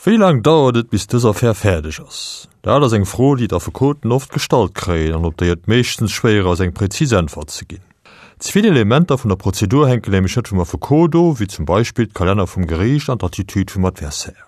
Wéi laang dauert et, bis dës Affär fäerdeg ass? Dat ass eng Fro, déi d'Affekoten oft gestallt kréien an op déi et meeschtens schwéier ass, eng präzis Äntwert ze ginn. Ze vill Elementer vun der Prozedur hänken nämlech net vum Affekot of, wéi zum Beispill d'Kalenner vum Geriicht an d'Attitude vum Adversaire.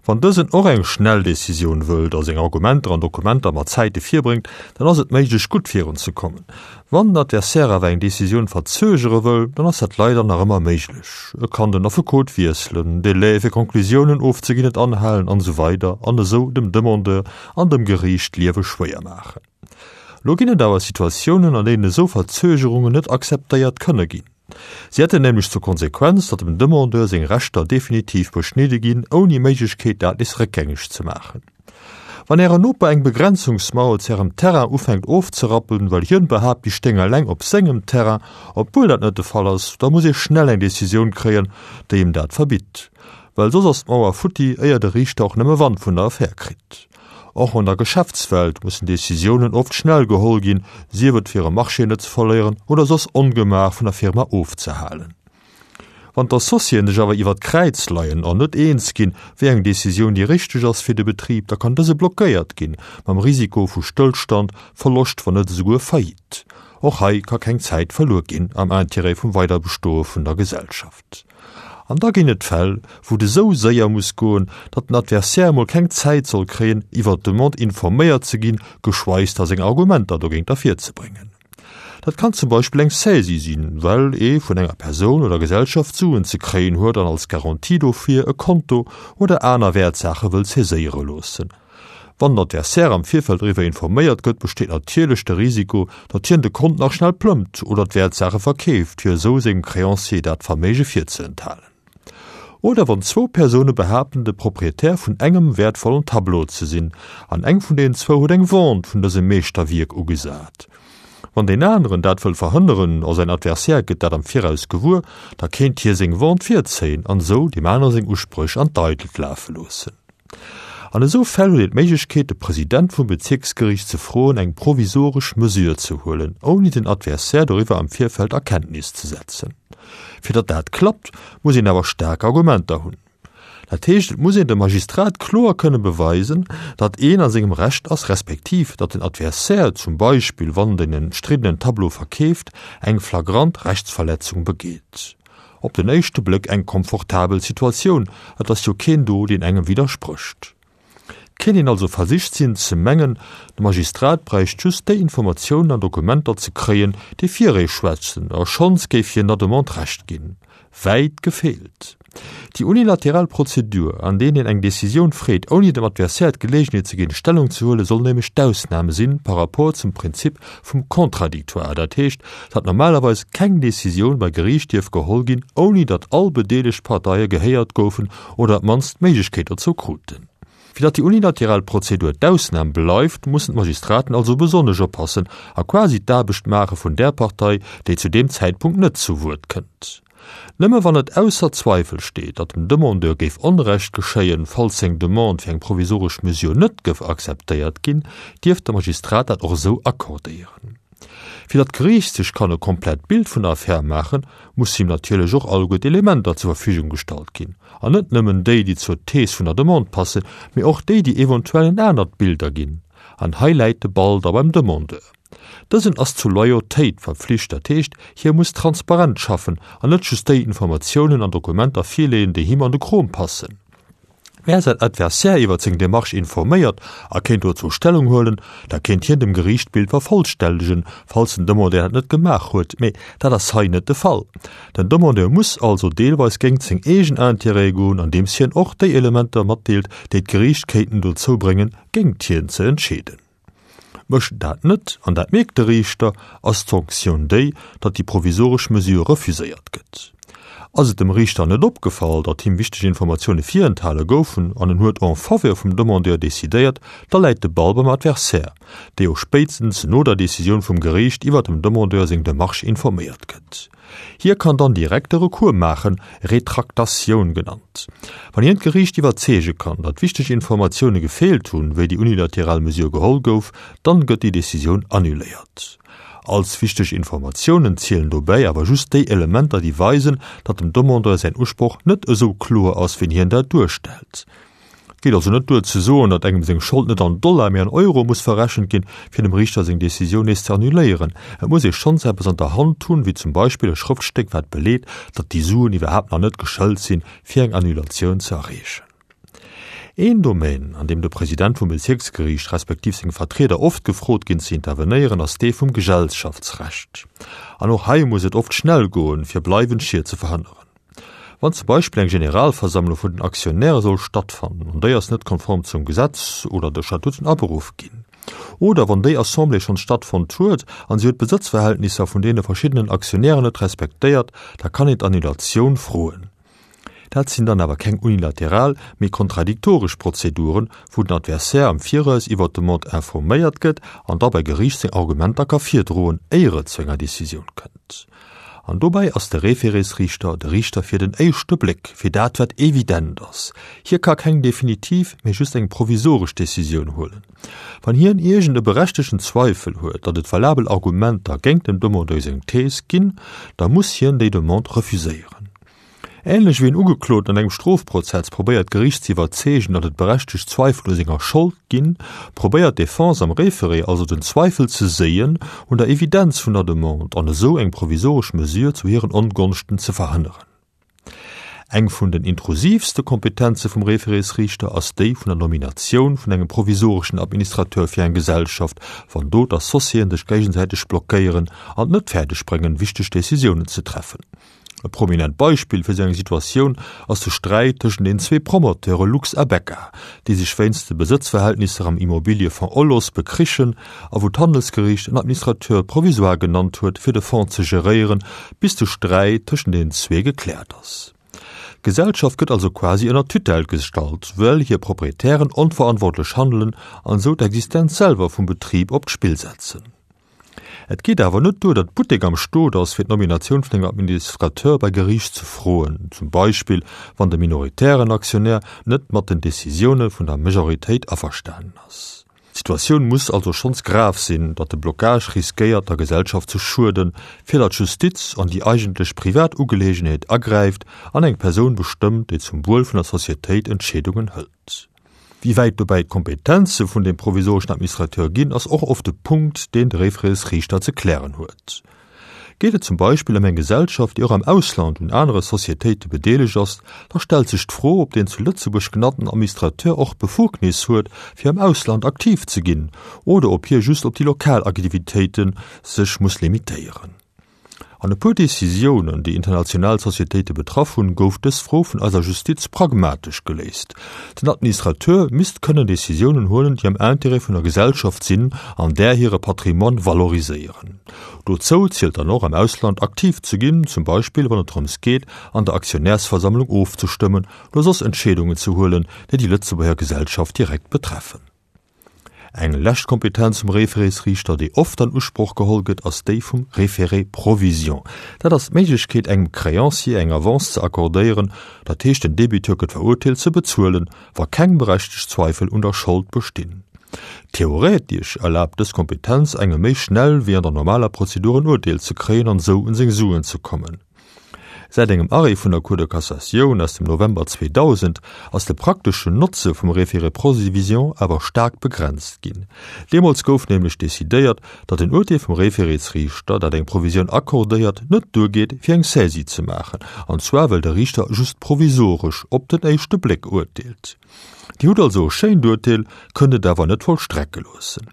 Wann dësen och eng schnell Decisioun wëllt a seng Argumenter an Dokumenter mat Zäite virbréngt, dann ass et méiglech gutt virunzekommen. Wann den Adversaire awer eng Decisioun verzögere wëll, dann ass dat leider nach ëmmer méiglech. E kann den Affekot wiesselen, Délai fir Conclusiounen ofzeginn net anhalen an esou weider an esou dem Demandeur an dem Geriicht d'Liewe schwéier maachen. Lo ginn et awer Situatiounen, an deenen esou Verzögerungen net akzeptéiert kënne ginn. Si hätten nämlech zur Konsequenz, datt dem Demandeur seng Rechter definitiv beschnidde ginn, ouni Méiglechkeet, dat nees réckgängeg ze maachen. Wann Ären Noper eng Begrenzungsmauer zu Ärem Terrain ufänkt ofzerappen, well hien behaapt, déi stéing eleng op sengem Terrain, obwuel dat net de Fall ass, da muss ee schnell eng Decisioun kréien, déi em dat verbitt. Well soss ass d'Mauer futti, éier de Riichter och nëmme Wand vun der Affär kritt. Och an der Geschäftswelt mussen Decisiounen oft schnell geholl ginn, sief et fir e Marché net ze verléieren oder soss Ongemaach vun der Firma ofzehalen. Wann d'Associéen sech awer iwwer d'Kräiz leien an net eens ginn, wéi eng Decisioun déi richteg ass fir de Betrib, da kann dëse blockéiert ginn, mam Risiko vu Stëllstand, Verloscht, wann net esouguer Faillite. Och hei ka keng Zäit verluer ginn am Intérêt vum Weiderbestoe vun der Gesellschaft. An da ginn et Fäll, wou et esou séier muss goen, datt den Adversaire emol keng Zäit soll kréien, iwwer d'Demande informéiert ze ginn, geschweigs da seng Argumenter dogéint ervirzebréngen. Dat kann zum Beispill eng Saisie sinn, well ee vun enger Persoun oder Gesellschaft Suen ze kréien huet an als Garantie dofir e Konto oder aner Wäertsaache wëll saiséiere loossen. Wann den Adversaire am Virfeld doriwwer informéiert gëtt, besteet natierlech de Risiko, datt hien de Kont nach schnell plëmmt oder d'Wäertsaache verkeeft, fir esou sengem Créancier dat Verméige virzeenthalen. Oder wann zwou Persoune behaapten, de Proprietär vun engem wäertvollen Tableau ze sinn, an eng vun deenen zwou huet eng Vente vun dësem Meeschterwierk ugesat. Wann deen aneren dat wëll verhënneren a säin Adversaire gëtt dat am Viraus gewuer, da kéint hie seng Vente virzéien an esou deem anere seng Uspréch an d'Eidelt lafe loossen. An esou Fäll huet een d'Méiglechkeet, de President vum Bezierksgeriicht ze froen, eng provisoresch Mesure ze huelen, ouni den Adversaire doriwwer am Virfeld a Kenntnis ze setzen. Fir datt dat klappt, muss een awer staark Argumenter hunn. Dat heescht, et muss een dem Magistrat kloer kënne beweisen, datt een a sengem Recht ass, respektiv datt den Adversaire, zum Beispill wann den emstriddenen Tableau verkeeft, eng flagrant Rechtsverletzung begeet. Op den éischte Bléck eng komfortabel Situatioun, et ass jo keen do, deen engem widdersprécht. Et kéint een also versicht sinn ze mengen, de Magistrat bräicht just déi Informatiounen an Dokumenter ze kréien, déi fir ee schwätzen, a schonns géif hien der Demande Recht ginn. Wäit gefeelt! Déi unilateral Prozedur, an deenen een eng Decisioun freet, ouni dem Adversaire d'Geleegenheet ze ginn, Stellung ze huelen, soll nämlech d'Ausnam sinn par rapport zum Prinzip vum Contradictoire, dat heescht, datt normalerweis keng Decisioun bei Geriicht dierf geholl ginn, ouni datt all bedeelegt Parteie gehéiert goufen oder op d'mannst d'Méiglechkeet dozou kruten. Fir datt déi unilateral Prozedur d'Ausnam bleift, mussen d'Magistraten also besonnesch oppassen a quasi d'Aarbecht maache vun där Partei, déi zu deem Zäitpunkt net zu Wuert kënnt. Nëmme wann et ausser Zweifel steet, datt dem Demandeur géif Onrecht geschéien, falls seng Demande fir eng provisoresch Mesure net gëff akzeptéiert ginn, dierf de Magistrat dat och esou accordéieren. Fir datt d'Geriicht sech kann e komplett Bild vun der Affär maachen, muss him natierlech och alleguer d'Elementer zur Verfügung gestallt ginn, an net nëmmen déi, déi zur Thees vun der Demande passen, mee och déi, déi eventuell en anert Bild erginn. An hei läit de Ball da beim Demandeur. Dësen ass zu Loyautéit verpflicht, dat heescht, hie muss transparent schaffen an net just déi Informatiounen an Dokumenter virleeën, déi him an de Krom passen. Wär säin Adversaire iwwert seng Demarche informéiert a kéint dozou Stellung huelen, da kéint hien dem Geriicht d'Bild vervollställegen, falls den Demandeur dat net gemaach huet. Mee dat ass hei net de Fall. Den Demandeur muss also deelweis géingt seng eegen Intérêtë goen, andeems hien och déi Elementer matdeelt, déi d'Geriicht kéinten dozou bréngen, géingt hien ze entscheeden. Mécht en dat net, an dat mierkt de Riichter, ass d'Sanktioun déi, datt déi provisoresch Mesure refuséiert gëtt. Ass et dem Riichter net opgefall, datt him wichteg Informatioune virenthale goufen an en huet en faveur vum Demandeur decidéiert, da läit de Ball beim Adversaire, dee jo spéitstens no der Decisioun vum Geriicht iwwer dem Demandeur seng Demarche informéiert gëtt. Hie kann dann direkt e Recours maachen, Retraktatioun genannt. Wann hien d'Geriicht iwwerzeege kann, datt wichteg Informatioune gefeelt hunn, wéi déi unilateral Mesure geholl gouf, dann gëtt déi Decisioun annuléiert. Als wichteg Informatiounen zielen dobäi awer just déi Elementer, déi weisen, datt dem Demandeur säin Usproch net esou kloer ass, wéi hien dat duerstellt. Et geet also net duer ze soen, datt engem seng Schold net an Dollar, mee an Euro muss verrechent ginn, fir dem Riichter seng Decisioun nees ze annuléieren. Et muss ee schonns eppes an der Hand hunn, wéi zum Beispill e Schrëftstéck, wat beleet, datt déi Suen iwwerhaapt nach net geschëlt sinn, fir eng Annulatioun ze erreechen. Een Domaine, an deem de President vum Bezierksgeriicht respektiv seng Vertrieder oft gefrot ginn ze intervenéieren, ass dee vum Gesellschaftsrecht. An och hei muss et oft schnell goen, fir bleiwend Schied ze verhënneren. Wann zum Beispill eng Generalversammlung vun den Aktionäre soll stattfannen an déi ass net konform zum Gesetz oder de Statuten aberuff ginn, oder wann déi Assemblée schonns stattfonnt huet an si huet d'Besëtzverhältnisser vun deene verschiddenen Aktionären net respektéiert, da kann een d'Annulatioun froen. Dat sinn dann awer keng unilateral, mee kontradiktoresch Prozeduren, wou den Adversaire am Viraus iwwert d'Demande informéiert gëtt an da bei Geriicht seng Argumenter ka virdroen, éier et zu enger Decisioun kënnt. An dobäi ass de Référésriichter de Riichter fir den éischte Bléck, fir dat wat evident ass. Hie ka keng definitiv, mee just eng provisoresch Decisioun huelen. Wann hien iergend e berechtegten Zweifel huet, datt et valabel Argumenter géint dem Demandeur seng Thees ginn, da muss hien déi Demande refuséieren. Änlech wéi en Ugekloten an engem Strofprozess probéiert d'Geriicht ze iwwerzeegen, datt et berechtegt Zweifel u senger Schold ginn, probéiert d'Defense am Référé also den Zweifel ze séien un der Evidenz vun der Demande an esou eng provisoresch Mesure zu hiren Ongonschten ze verhënneren. Eng vun den intrusiivste Kompetenze vum Référésriichter ass déi vun der Nominatioun vun engem provisoreschen Administrateur fir eng Gesellschaft, wann do d'Associéen sech géigesäiteg blockéieren an et net fäerdeg bréngen, wichteg Decisiounen ze treffen. E prominent Beispill fir esou eng Situatioun ass de Sträit tëschent den zwee Promoteure Lux a Becca, déi sech wéinst de Besëtzverhältnisser am Immobiliëfonds Olos bekrichen a wou d'Handelsgeriicht en Administrateur provisoire genannt huet, fir de Fonds ze geréieren, bis de Sträit tëschent den zwee gekläert ass. D'Gesellschaft gëtt also quasi ënner Tutelle gestallt, well hir Proprietären onverantwortlech handelen an esou d'Existenz selwer vum Betrib op d'Spill setzen. Et geet awer net duer, datt Buttek am Stot ass, fir d'Nominatioun vun engem Administrateur bei Geriicht ze froen, zum Beispill wann de minoritären Aktionär net mat den Decisioune vun der Majoritéit averstanen ass. D'Situatioun muss also schonns grav sinn, datt de Blocage riskéiert der Gesellschaft ze schueden, fir datt d'Justiz an déi eigentlech privat Ugeleegenheet agräift an eng Persoun bestëmmt, déi zum Wuel vun der Societéit Entscheedungen hëlt. Wéi wäit dobäi d'Kompetenze vun dem provisoreschen Administrateur ginn, ass och oft e Punkt, deen de Référésriichter ze klären huet. Geet et zum Beispill ëm eng Gesellschaft, déi och am Ausland un anere Societéite bedeelegt ass, da stellt sech d'Fro, ob deen zu Lëtzebuerg genannten Administrateur och d'Befugnis huet, fir am Ausland aktiv ze ginn, oder ob hie just op déi lokal Aktivitéite sech muss limitéieren. An e puer Decisiounen, déi international Societéite betraff hunn, gouf dës Fro vun eiser Justiz pragmatesch geléist. Den Administrateur misst kënnen Decisiounen huelen, déi am Intérêt vun der Gesellschaft sinn an där hire Patrimoine valoriséieren. Dozou zielt dann och, am Ausland aktiv ze ginn, zum Beispill wann et drëms geet, an der Aktionärsversammlung ofzestëmmen oder soss Entscheedungen ze huelen, déi déi Lëtzebuerger Gesellschaft direkt betreffen. Eng lescht Kompetenz vum Référésriichter, déi oft an Usproch geholl gëtt, ass déi vum Référé provision. Dat ass d'Méiglechkeet, engem Créancier eng Avance ze accordéieren, dat heescht den Débiteur gëtt verurteelt ze bezuelen, wa keng berechtegt Zweifel un der Schold bestinn. Theoretesch erlaabt dës Kompetenz engem méi schnell wéi an der normaler Prozedur en Urteel ze kréien an esou un seng Suen ze kommen. Säit engem Arrêt vun der Cour de Cassatioun aus dem November 2000 ass de prakteschen Notze vum Référé provision awer staark begrenzt ginn. Deemools gouf nämlech decidéiert, datt en Urteel vum Référésriichter, dat eng Provisioun accordéiert, net duergeet, fir eng Saisie ze maachen, an zwar well de Riichter just provisoresch op den éischte Bléck urteelt. Dir hutt also e schéint Urteel, kënnt et awer net vollstrecke loossen.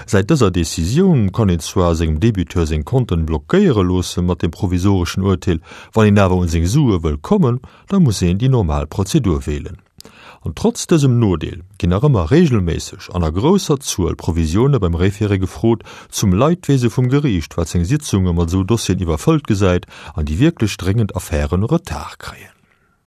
Säit dëser Decisioun kann een zwar sengem Debiteur seng Konten blockéiere loosse mat dem provisoreschen Urteel, wann een awer un seng Sue wëll kommen, da muss een déi normal Prozedur wählen. An trotz dësem Nodeel ginn nach ëmmer regelméisseg an a grousser Zuel Provisioune beim Référé gefrot, zum Leidwese vum Geriicht, wat seng Sitzunge mat esou Dossieren iwwerfëllt gesäit an déi wierklech dréngend Affären Retard kréien.